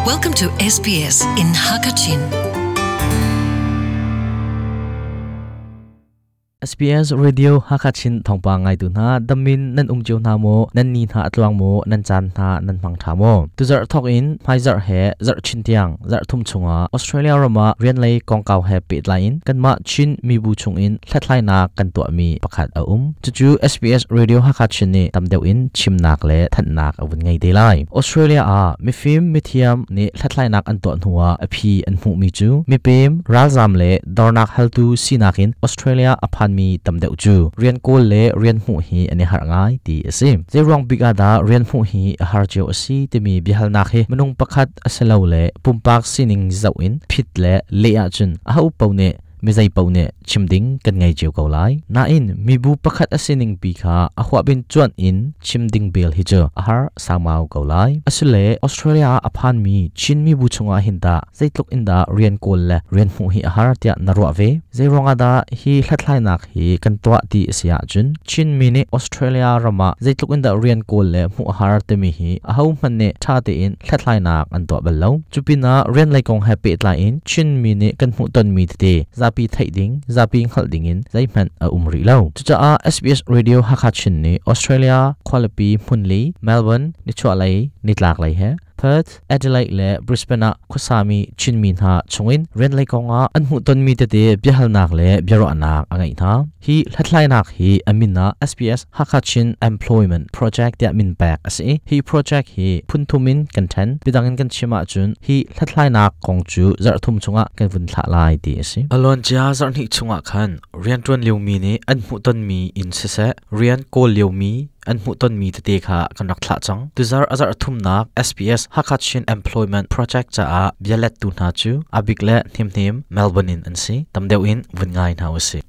Welcome to SBS in Hakachin. SBS Radio Hakachin thawngpang ngaitu hna damin nan um cio hna maw nan ni hna atluang maw nan caan hna nan hmang tha maw tuzarh thok in hmaizarh he zarh chin tiang zarh thum chungah Australia ram ah rian lei kongkau he pehtlai in kanmah Chin mibu chungin hlathlainak kan tuahmi pakhat a um. Cucu SBS Radio Hakha Chin nih tam deuh in chimnak le thanhnak a vun ngei te lai. Australia ah mifim mithiam nih hlathlainak an tuah hnuah a phi an hmuhmi cu mipem, ralzam le dornak haltu sinak in Australia a phanmi tam deuh cu rian kawl le rian hmuh hi an i harh ngai ti a si. Zeiruang bik ah dah rian hmuh hi a har cio a si timi biahalnak hi minung pakhat a si lo le pumpak sining zoh in phit le leh ahcun aho paoh nih mizei paoh nih chim ding kan ngei cio ko lai. Nain mibu pakhat a sining pi kha a huahbin cuanh in chim ding bel hi cu a har sangmau ko lai. Asile Australia ah a phanmi Chin mibu chungah hin tah zeitluk in dah rian kawl le rian hmuh hi a har tiah na ruah ve? Zeiruangah dah hi hlathlainak hi kan tuah ti a si ahcun Chinmi nih Australia ram ah zeitluk in dah rian kawl le hmuh a har timi hi ahohmanh nih ṭha tein hlathlainak an tuah bal lo. Cupinah rian lei kong he pehtlai in Chinmi nih kan hmuhtonmi tete zapi theih ding, zapi hngalh ding in zeihmanh a um rih lo. Cucaah SBS Radio Hakha Chin nih Australia khualipi hmunli Melbourne, nichuahlei, nitlaklei he Perth, Adelaide le Brisbane ah khuasami Chinmi hna chungin rian lei kongah an hmuhtonmi tete biahalnak le biaruahnak a ngeih hna. Hi hlathlainak hi a min ah SBS Hakha Chin Employment Project tiah min pek a si i hi project hi phun thum in kan ṭhen. Bidang in kan chim ahcun hi hlathlainak kong cu zarh thum chungah kan vun thlah lai ti a si. Alon-cia zarhhnih chungah khan rianṭuan liomi nih an hmuhtonmi in siseh, rian kawl liomi an hmuhtonmi tete kha kan rak thlah cang. Tuzarh a zarh thumnak SBS Hakha Chin Employment Project caah bialettu hna cu Abik le Hnemhnem Melbourne in an si. Tam deuh in vun ngai hna usih.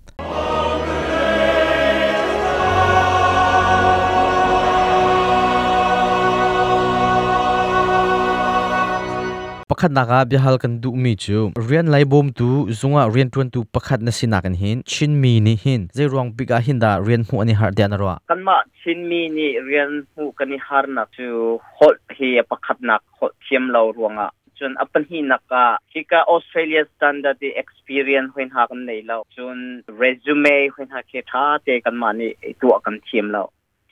Pakhatnak ah biahal kan duhmi cu rian lei bawmtu zungah rianṭuantu pakhat na sinak in hin Chinmi nih hin zeiruang bik ah hin dah rian hmuh an i harh tiah na ruah? Kanmah Chinmi nih rian hmuh kan i harnak cu holh hi a pakhatnak holh thiam lo ruangah cun a pahnihnak ah hika Australia standard i experience hoi hna kan nei lo cun resume hoi hna khi ṭha te kanmah nih tuah kan thiam lo.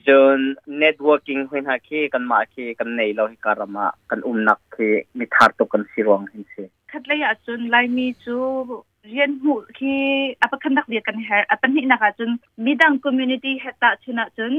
Cun networking hoi hna khi kanmah khi kan nei lo hika ram ah kan umnak khi mithar tuk kan si ruang hin si. Khatlei ah cun Laimi cu rian hmuh khi a pakhatnak bia kan herh. A pahnihnak ah cun midang community he tahchun ahcun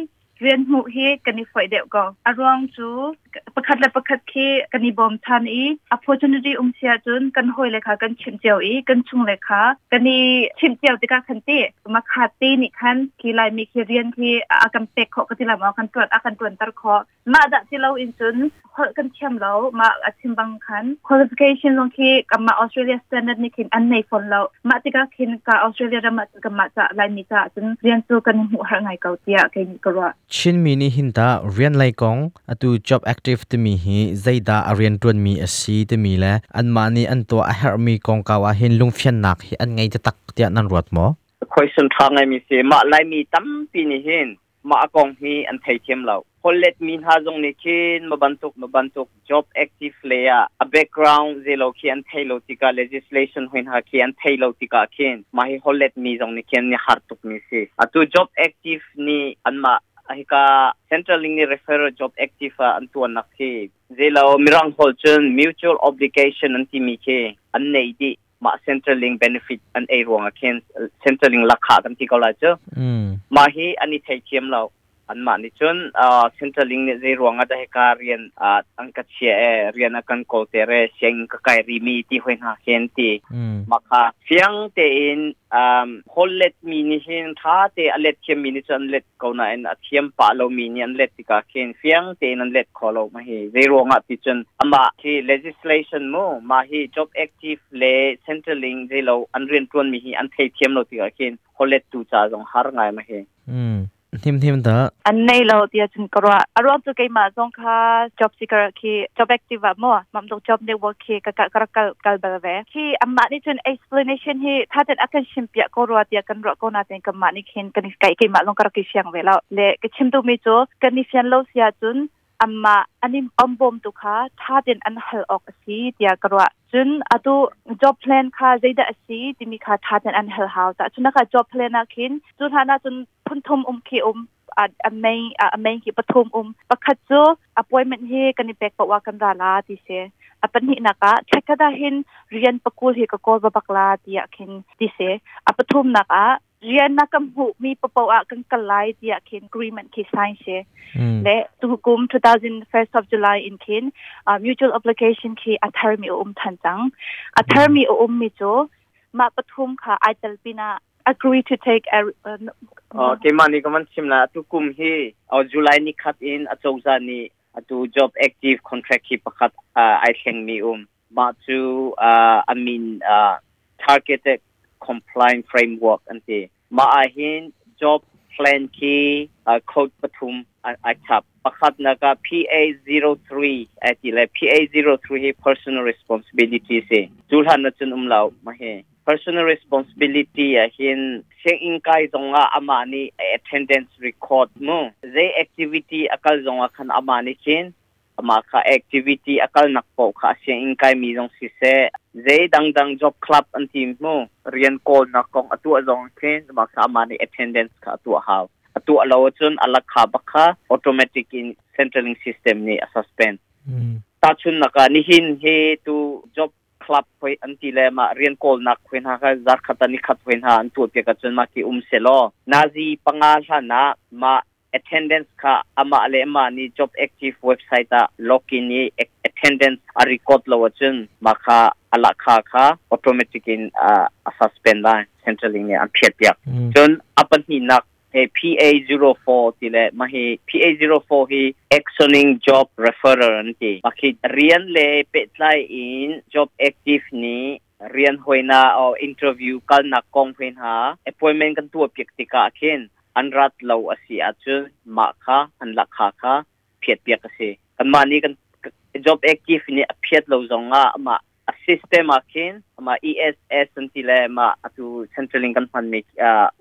rian hmuh hi kan i foih deuh ko. A ruang cu pakhat le pakhat khi kan i bawm than i opportunity um si ahcun kan hawile kha kan chimh cio i kan chung le kha kan i chimh cio tikah khan ti makha te nih khan khi Laimi khi rian khi a kan pek khawh ka ti la maw kan tuan a kan tuanter khawh mah dah ti lo in cun holh kan thiam lo mah a chim bang khan qualification zong khi kanmah Australia standard nih khin an nei fawn lo mah tikah khin ka Australia ram ah kanmah ca Laimi ca cun rian cu kan hmuh har ngai ko tiah kei nih ka ruah. Chinmi nih hin tah rian lei kong atu job active timi hi zeidah a rianṭuanmi a si timi le anmah nih an tuah a herhmi kongkau ah hin lungfiannak hi an ngei taktak tiah nan ruat maw? Question ṭha ngaimi si. Mah Laimi tampi nih hin mah a kong hi an theithiam lo. Holhlet mi hna zong nih khin ma bantuk ma bantuk job active lei ah a background zelo khi an thei lo tikah legislation hoi hna khi an thei lo tikah khin mah hi holhlet mi zong nih khin an har tuk mi si. Atu job active nih anmah hika central ling nih referral job active ah an tuannak khi zelo mirang holh cun mutual obligation an timi khi an nei dih mah central link benefit an ei ruangah khin central link lakha kan ti ko lai cu mah hi an i theithiam lo anmah nih cun central link nih zei ruangah dah hika rian an ka chia e rian a kan kawl ter e sianginn ka kai rimi ti hoi hna khin ti mah kha fiang tein hollet mi nih hin tha te a let thiam mi nih cun an let ko nain a thiam pah lomi nih an let tikah khin fiang tein an let kho lo ma hi zei ruangah ti cun amah hi legislation mu mah hi job active le centerlink zei lo an rian tuan mi hi an thei thiam lo tikah khin hollet tu ca zong har ngai ma hi. Hnim hnim dah. An nei lo tiah cun ka ruah. A ruang cu keimah zong kha job seeker khi job active ah maw mam dong job network khi ka ka rak kal kal bal ve. Khi amah nih cun explanation hi tha ten a kan chim piah ko rua tiah kan ruah ko na ten kanmah nih khin kan kai keimah zong ka rak i fiang ve lo. Le ka chim duhmi cu kan i fian lo si ahcun Amma anim ombom tu kha tha ten an hal ok asi tia karwa. Chun atu job plan kha zeida asi timi kha tha ten an hal hau ta. Chun ka job plan a khin chun hana chun phun thum khi a main a main ki pathum pakhat chu appointment hi kan pek pa wa kan ra la ti se. Apan hi naka thakada hin rian pakul hi ka kol ba bakla ti a khin ti se. Apathum naka rian na kam hu mi papo a kan kalai ti a khin agreement ki sign se. Le tu kum 2000 1st of July in khin mutual application ki athar mi than chang athar mi mi chu ma pathum kha aital pina agree to take a ke mani ka man chimla tu kum hi July ni khat in achawza ni atu job active contract hi pakhat ai thleng mi ma chu I mean targeted compliant framework ante ma a hin job plan ki code pathum ai chap pakhat na ka PA03 ati le PA03 hi personal responsibility se chulhan na chun lau ma he personal responsibility a hin seng in kai zonga ama ni attendance record mu ze activity akal zonga khan ama ni khin ama kha activity akal nak po kha seng in kai mi zong si se ze dang dang job club an team mu rian call nak kong atu zong khin ma kha ama ni attendance kha atu haw atu alo chun alak kha bakha automatic in centraling system ni a suspend. Ta chun naka ni hin he tu job club hoi an ti le ma rian kol nak khwen ha kha zar khata ni khat hoi ha an tu pe ka chun ma ki se lo nazi panga hla na ma attendance kha ama le ma ni job active website a login ni attendance a record lo chun ma kha ala kha kha automatic in a suspend la centraling ni an phiat piak chun apan hi nak he PA04 ti le ma hi PA04 hi actioning job referral an ti ma khi rian le pe tlai in job active ni rian hoina o interview kal na kong hoin ha appointment kan tu piak tika khin an rat lo asi a chu ma kha an la kha kha phiat piak ase kan ma ni kan job active ni a phiat lo zonga ma a system a khin ma ESS an ti le ma atu centraling kan han mi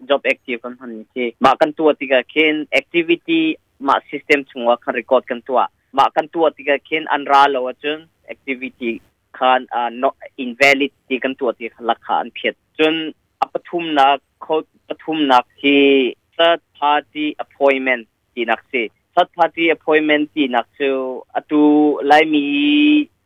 job active kan han mi khi ma kan tu tika khin activity ma system chungwa khan record kan tua ma kan tua tika khin an ra lo achun activity khan not invalid ti kan tua ti lakha an phiat chun apathum na code pathum nak hi third party appointment ti nak si third party appointment ti nak chu atu lai mi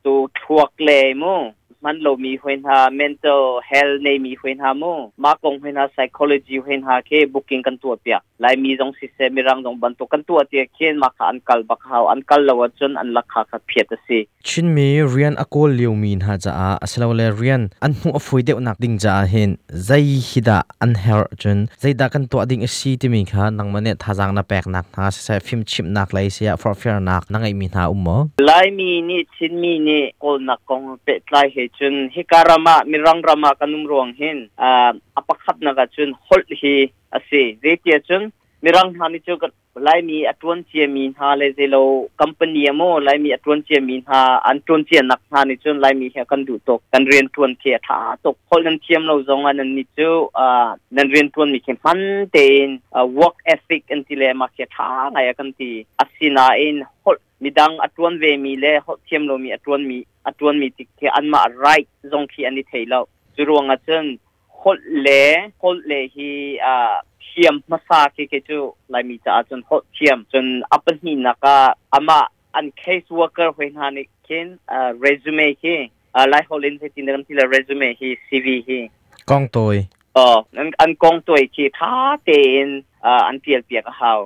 tu thuak le mu man lo mi hwen ha mental health nei mi hwen ha mu ma kong hwen ha psychology hwen ha ke booking kan tua pia lai mi jong si se mirang jong ban to kan tua ti khen ma kha an kal bak haw an kal lo chun an lakha kha phiat si chin mi rian akol liu min ha cha a aslo le rian an mu afui deuh nak ding cha hin zai hida an her chun zai da kan to ding si ti mi kha nang mane thajang na pek nak na se phim chip nak lai sia for fair nak nangai mi na ummo lai mi ni chin mi ni kol nak kong pe tlai he chun hikarama mirang rama kanum ruang hin apakhat na ka chun hol hi ase zetia chun mirang hani chu lai mi atun che mi ha le zelo company amo lai mi atun che mi ha an tun che nak ha ni chun lai mi he kan du tok kan rian tuan the tha tok hol nan thiam lo zong an ni chu nan rian tuan mi khem man te in work ethic an ti le ma khe tha ngai kan ti asina in hol midang atuan ve mi le hol thiam lo mi atuan mi tik the an ma right zong khi ani theilo churuanga chen hol le hi thiam masa ke ke chu lai mi cha chun hol thiam chun apan hi naka ama an case worker hoin ha ni kin resume hi lai holin se tin kan ti la resume hi CV hi kong toi an kong toi khi tha te in an tial piak haw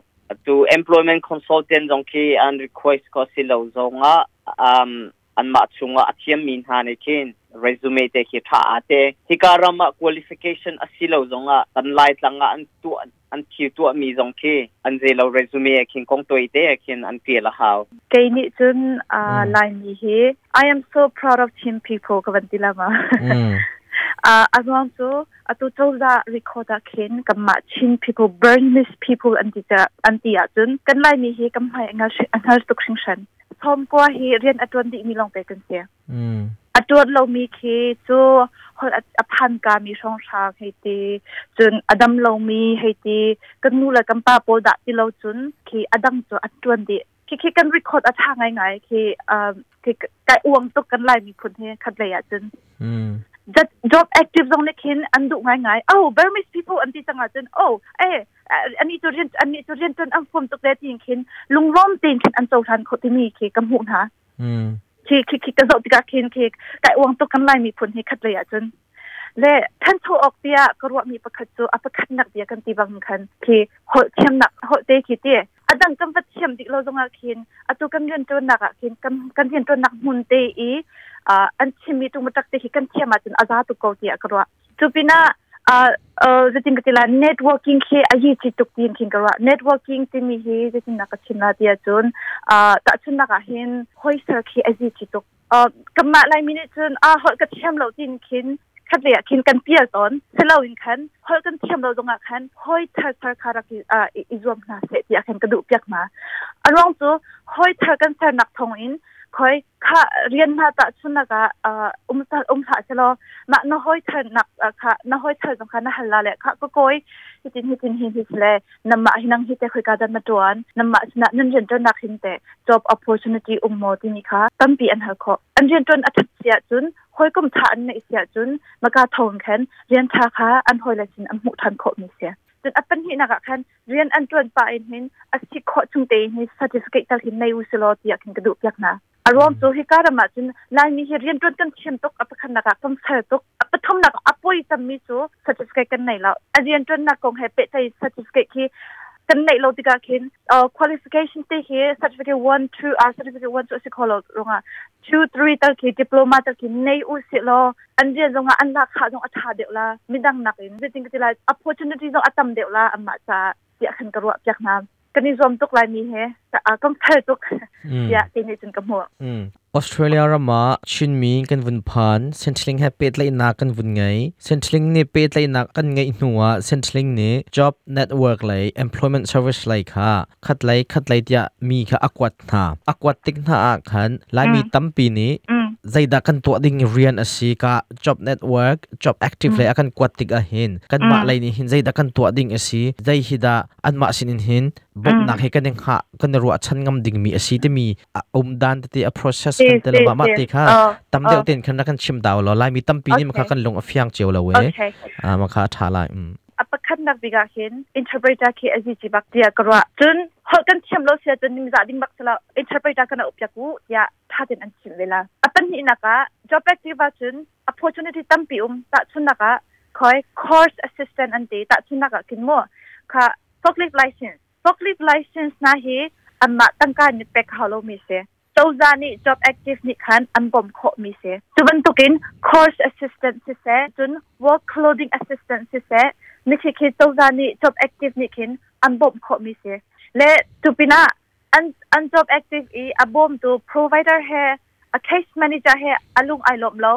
to employment consultant jong khi an request ko silo zonga an ma chunga athiam min ha ne khin resume te khi tha te hikarama qualification asilo zonga kan lai tlanga an tu an thi tu mi zong khi an zelo resume khin kong toi te khin an ti la haw ke ni chun lai mi hi I am so proud of Chin people ka ban ti lama azwang chu atu chawza record a khin kamma Chin people Burmese people anti cha anti a chun kan lai mi hi kam hai nga angal tuk sing shan thom ko hi rian atun di mi long te kan se atun lo mi khi chu hol aphan ka mi song sha hei ti chun adam lo mi hei ti kan nu la kam pa pol da ti lo chun khi adam chu atun di Khi khi kan record a tha ngai ngai khi khi kai uang tuk kan Lai miphun hi khat lei ah cun. That job active zong nih khin an duh ngai ngai. Oh, Burmese people an ti cang ah cun, oh, eh, ani cu rian ani cu rian tuan an fuam tuk le tiin khin lunglawm tein khin an cohlan kho timi khi ka hmuh hna. Khi khi khi ka zoh tikah khin khi kai uang tuk kan Lai miphun hi khat lei ah cun. Le thancho awk tiah ka ruahmi pakhat cu a pakhatnak bia kan ti bang khan khi holh thiamnak holh te khi ti adang kan va thiam dik lo zongah khin atu kan rian ṭuannak ah khin kan kan rian ṭuannak hmun te i an chimmi ṭungmaṭak te khi kan thiam ahcun a za tuk ko tiah ka ruah. Cu pinah zeitin ka ti lai, networking khi a hi chi tuk tiin khin ka ruah. Networking timi hi zeitin nak ka chim la ti ahcun tahchunnak ah hin hawiser khi a zi chi tuk. Kanmah Laimi nih cun a holh ka thiam lo tiin khin khat lei ah khin kan pial tawn. Siloin khan holh kan thiam lo zongah khan hawi thar thar kha rak i zuam hna seh tiah khan ka duh piak hna. A ruang cu hawi thar kan sernak thawng in khoi kha rian hna tah chunak ah um um hlah selaw mah na hawi thar nak kha na hawi thar zong kha na hal la le kha ka kawi hitin hitin hin hi le namah hi nang hi te khoi ka dan na tuan namah sinah nan rian tuannak hin te job opportunity um maw timi kha tampi an hal khawh. An rian tuan a that sia cun hawikom tha an neih sia cun maka thong khan rian tha kha an hawile sin an hmuh than khawh mi sia. Cun a pahnihnak ah khan rian an tuan pa in hin a si khawh chung te hin certificate tal hin nei u selaw tiah khin ka duh piak hna. A ruang cu hika ram ah cun Laimi hi rian tuan kan thiam tuk, a pakhatnak ah kan fel tuk, a pathumnak a poi cemmi cu certificate kan nei lo. A rian tuannak kong he pehtlai certificate khi kan neih lo tikah khin qualification te hi certificate 1 2 certificate 1 cu a si kho lo ruangah 2 3 tal khi diploma tal khi nei u si law an rian zongah an lak khah zong a tha deuh la, midang nakin zeitin ka ti lai, opportunity zong a tam deuh la anmah caah tiah khan ka ruah piak hna. Kan i zuam tuk lai mi he kan fel tuk tiah ti nih cun ka hmuh. Australia ram ah Chinmi kan vun phan. Centrelink he pehtlaihnak kan vun ngei. Centrelink nih pehtlaihnak kan ngeih hnu ah Centrelink nih job network lei, employment service lei kha khat lei khat lei tiah mi kha a kuat hna. A kuat tik hna ah khan Laimi tampi nih zeidah kan tuah ding rian a si ka job network, job active lei a kan kuat tik ah hin kanmah lei nih hin zeidah kan tuah ding a si, zei hi dah anmah sin in hin bawmhnak hi kan i hngah kan i ruahchan ngam dingmi a si timi a um dan tete a process kan te lo mah te kha tam deuh ten khan kan chim dau lo. Laimi tampi nih makha kan lung a fiang cio lo e, makha a tha lai. A pakhatnak bik ah hin interpreter khi a zi bak tiah ka ruah. Cun holh kan thiam lo sia cun ningzah ding bak sala interpreter kan up piak u tiah tha ten an chim ve la. A pahnihnak ah job active ah cun opportunity tampi um. Tahchunnak ah khoi course assistant an ti. Tahchunnak ah kin mu kha forklift license, forklift license na hi anmah tangka ni pek hau lo mi si, cozah nih job active nih khan an bawmh khawh mi si. Cu bantukin course assistant siseh, cun work clothing assistant siseh, mi khi khi cozah nih job active nih khin an bawmh khawh mi si le tu pinah an job active i a bawmtu provider he, a case manager he alung ai lawm lo,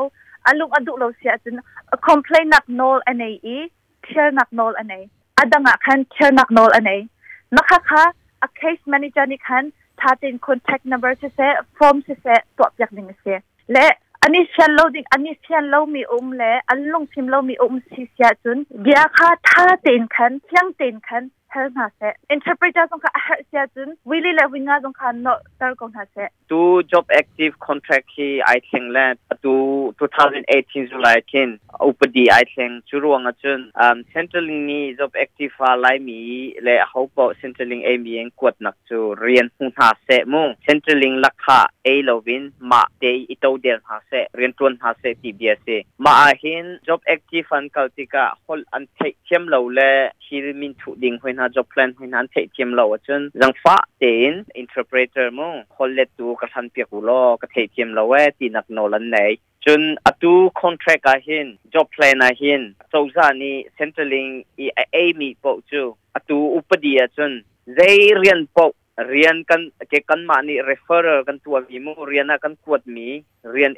alung a duh lo si ahcun a complain nak nawl a nei i thialnak nawl a nei. Adang ah khan thialnak nawl a nei. Makha kha a case manager nih khan thatin contact number siseh, form siseh tuah piak ding a si le ani fian lo ding, ani fian lo mi um le an lungfim lo mi um si sia cun bia kha tha tein khan fiang tein khan hal hna seh. Interpreter zong kha a herh sia cun wili le winga zong kha no tar ko hna seh. Tu job active contract hi ai thleng le atu 2018 July khin upadi ai thleng. Cu ruang ahcun Centrelink nih job active fa Laimi le ho paoh Centrelink ei mi in kuatnak cu rian hmu hna seh mu, Centrelink lakha ei lovin mah te i to del hna seh, rian tuan hna seh ti bia si. Mah ah hin job active an kal tikah holh an theih thiam lo le thil min thuh ding hoi hna, job plan hoi hna an theih thiam lo ahcun zangfah tein interpreter mu, holh lettu ka hlan piak u law, ka theih thiam lo e tinak nawl an nei. Cun atu contract ah hin, job plan ah hin cozah nih Centrelink i a ei mi paoh cu atu upadi ahcun zei rian paoh, rian kan ke kanmah nih referral kan tuah mi mu, rian ah kan kuat mi rian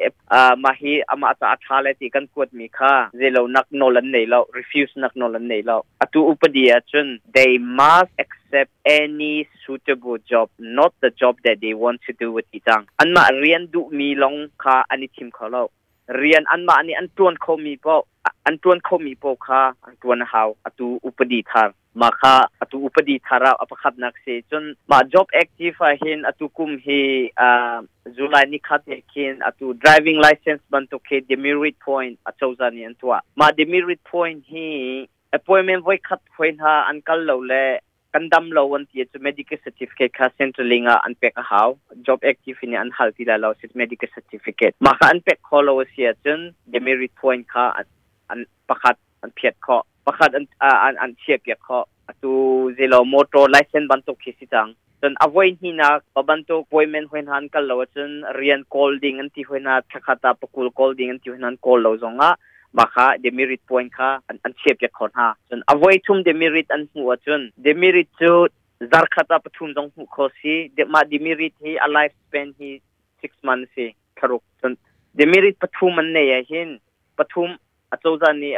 mah hi amah ca a tha le ti kan kuat mi kha zeilo nak nawl an nei lo, refuse nak nawl an nei lo. Atu upadi ahcun they must accept any suitable job, not the job that they want to do with ti cang. Anmah rian duh mi long kha an i thim kho lo. Rian anmah nih an ṭuan khomi paoh an ṭuan khomi paoh kha an ṭuan a hau. Atu upadi thar mah kha atu upadi thar ah a pakhatnak si. Cun mah job active ah hin atu kum hi July ni khat he khin atu driving license bantuk khi demerit point acozah nih an tuah. Mah demerit point hi appointment voi khat hoi hna an kal lo le kan dam lo an ti cu medical certificate kha Centrelink ah an pek a hau. Job active in an hal ti lai lo medical certificate. Mah kha an pek kho lo a si ahcun demerit point kha an pakhat an phiat khawh, pakhat an chiah piak khawh. Atu zelo motor license bantuk khi si cang. Cun a voi hnihnak pa bantuk appointment hoi hna an kal lo ahcun rian kawl ding an ti hoi hna, thlakhat ah pakul kawl ding an ti hoi hna, an kawl lo zongah mah kha demerit point kha an chiah piak kho hna. Cun a voi thum demerit an hmuh ahcun, demerit cu zarkhat ah pathum zong hmuh kho si. Mah demerit hi a life span hi 6 months si, thlaruk. Cun demerit pathum an nei ah hin, pathum acozah nih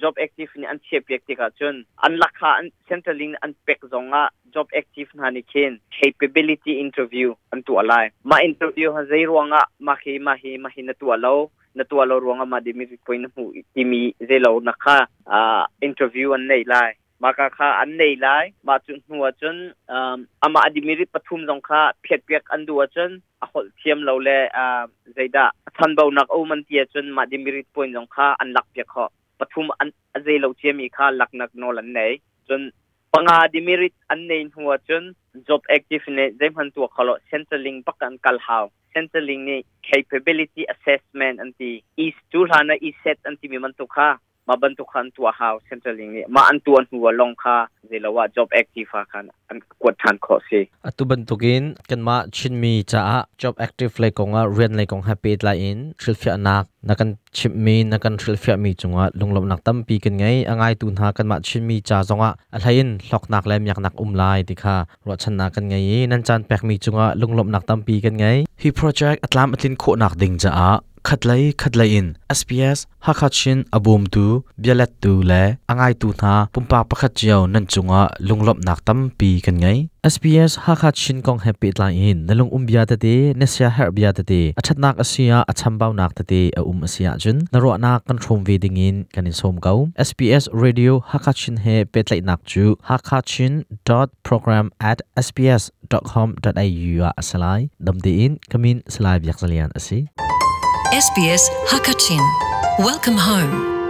job active nih an chiah piak tikah cun an lakha an Centrelink an pek zongah job active hna nih khin capability interview an tuah lai. Mah interview ha zei ruangah mah hi mah hi mah hi na tuah lo, na tuah lo ruangah mah demerit point na hmuh timi zeilo na kha interview an nei lai. Maka kha an nei lai. Mah cu hnu ah cun amah a demerit pathum zong kha phiat piak an duh ahcun, a holh thiam lo le zeidah chanbaunak a um an ti ahcun, mah demerit point zong kha an lak piak khawh. Pathum an a zei lo ciami kha laknak nawl an nei. Cun panga demerit an nei hnu ahcun job active nih zeihmanh tuah kho lo, Centrelink bak an kal hau. Centrelink nih capability assessment an ti, e cu hlan ah ESET an timi bantuk kha, mah bantuk kha an tuah hau Centrelink nih. Mah an tuah hnu ah long kha zeilo ah job active ah khan an kuat ṭhan khawh si. Atu bantukin kanmah Chinmi caah job active lei kongah rian lei kong he pehtlai in hrilhfiahnak na kan chimhmi, na kan hrilhfiahmi cungah lunglawmhnak tampi kan ngei. A ngaitu hna kanmah Chinmi ca zongah a hlei in hlawknak le miaknak um lai ti kha ruahchannak kan ngei i nan caan pekmi cungah lunglawmhnak tampi kan ngei. Hi project a tlam a tlin khawhnak ding caah khatlei khatlei in SBS Hakha Chin a bawmtu, bialettu le a ngaitu hna pumpak pakhat cio nan cungah lunglawmhnak tampi kan ngei. SBS Hakha Chin kong he pehtlai in na lung um bia tete, na sia herh bia tete, a ṭhatnak a si ah a chambaunak tete a um a si ahcun na ruahnak kan hrawm ve dingin kan in sawm ko. SBS Radio Hakha Chin he pehtlaihnak cu hakachin.program@sbs.com.au ah a si lai. Dam tein kamin Salai Biak Zalian a si. SBS Hakachin. Welcome home.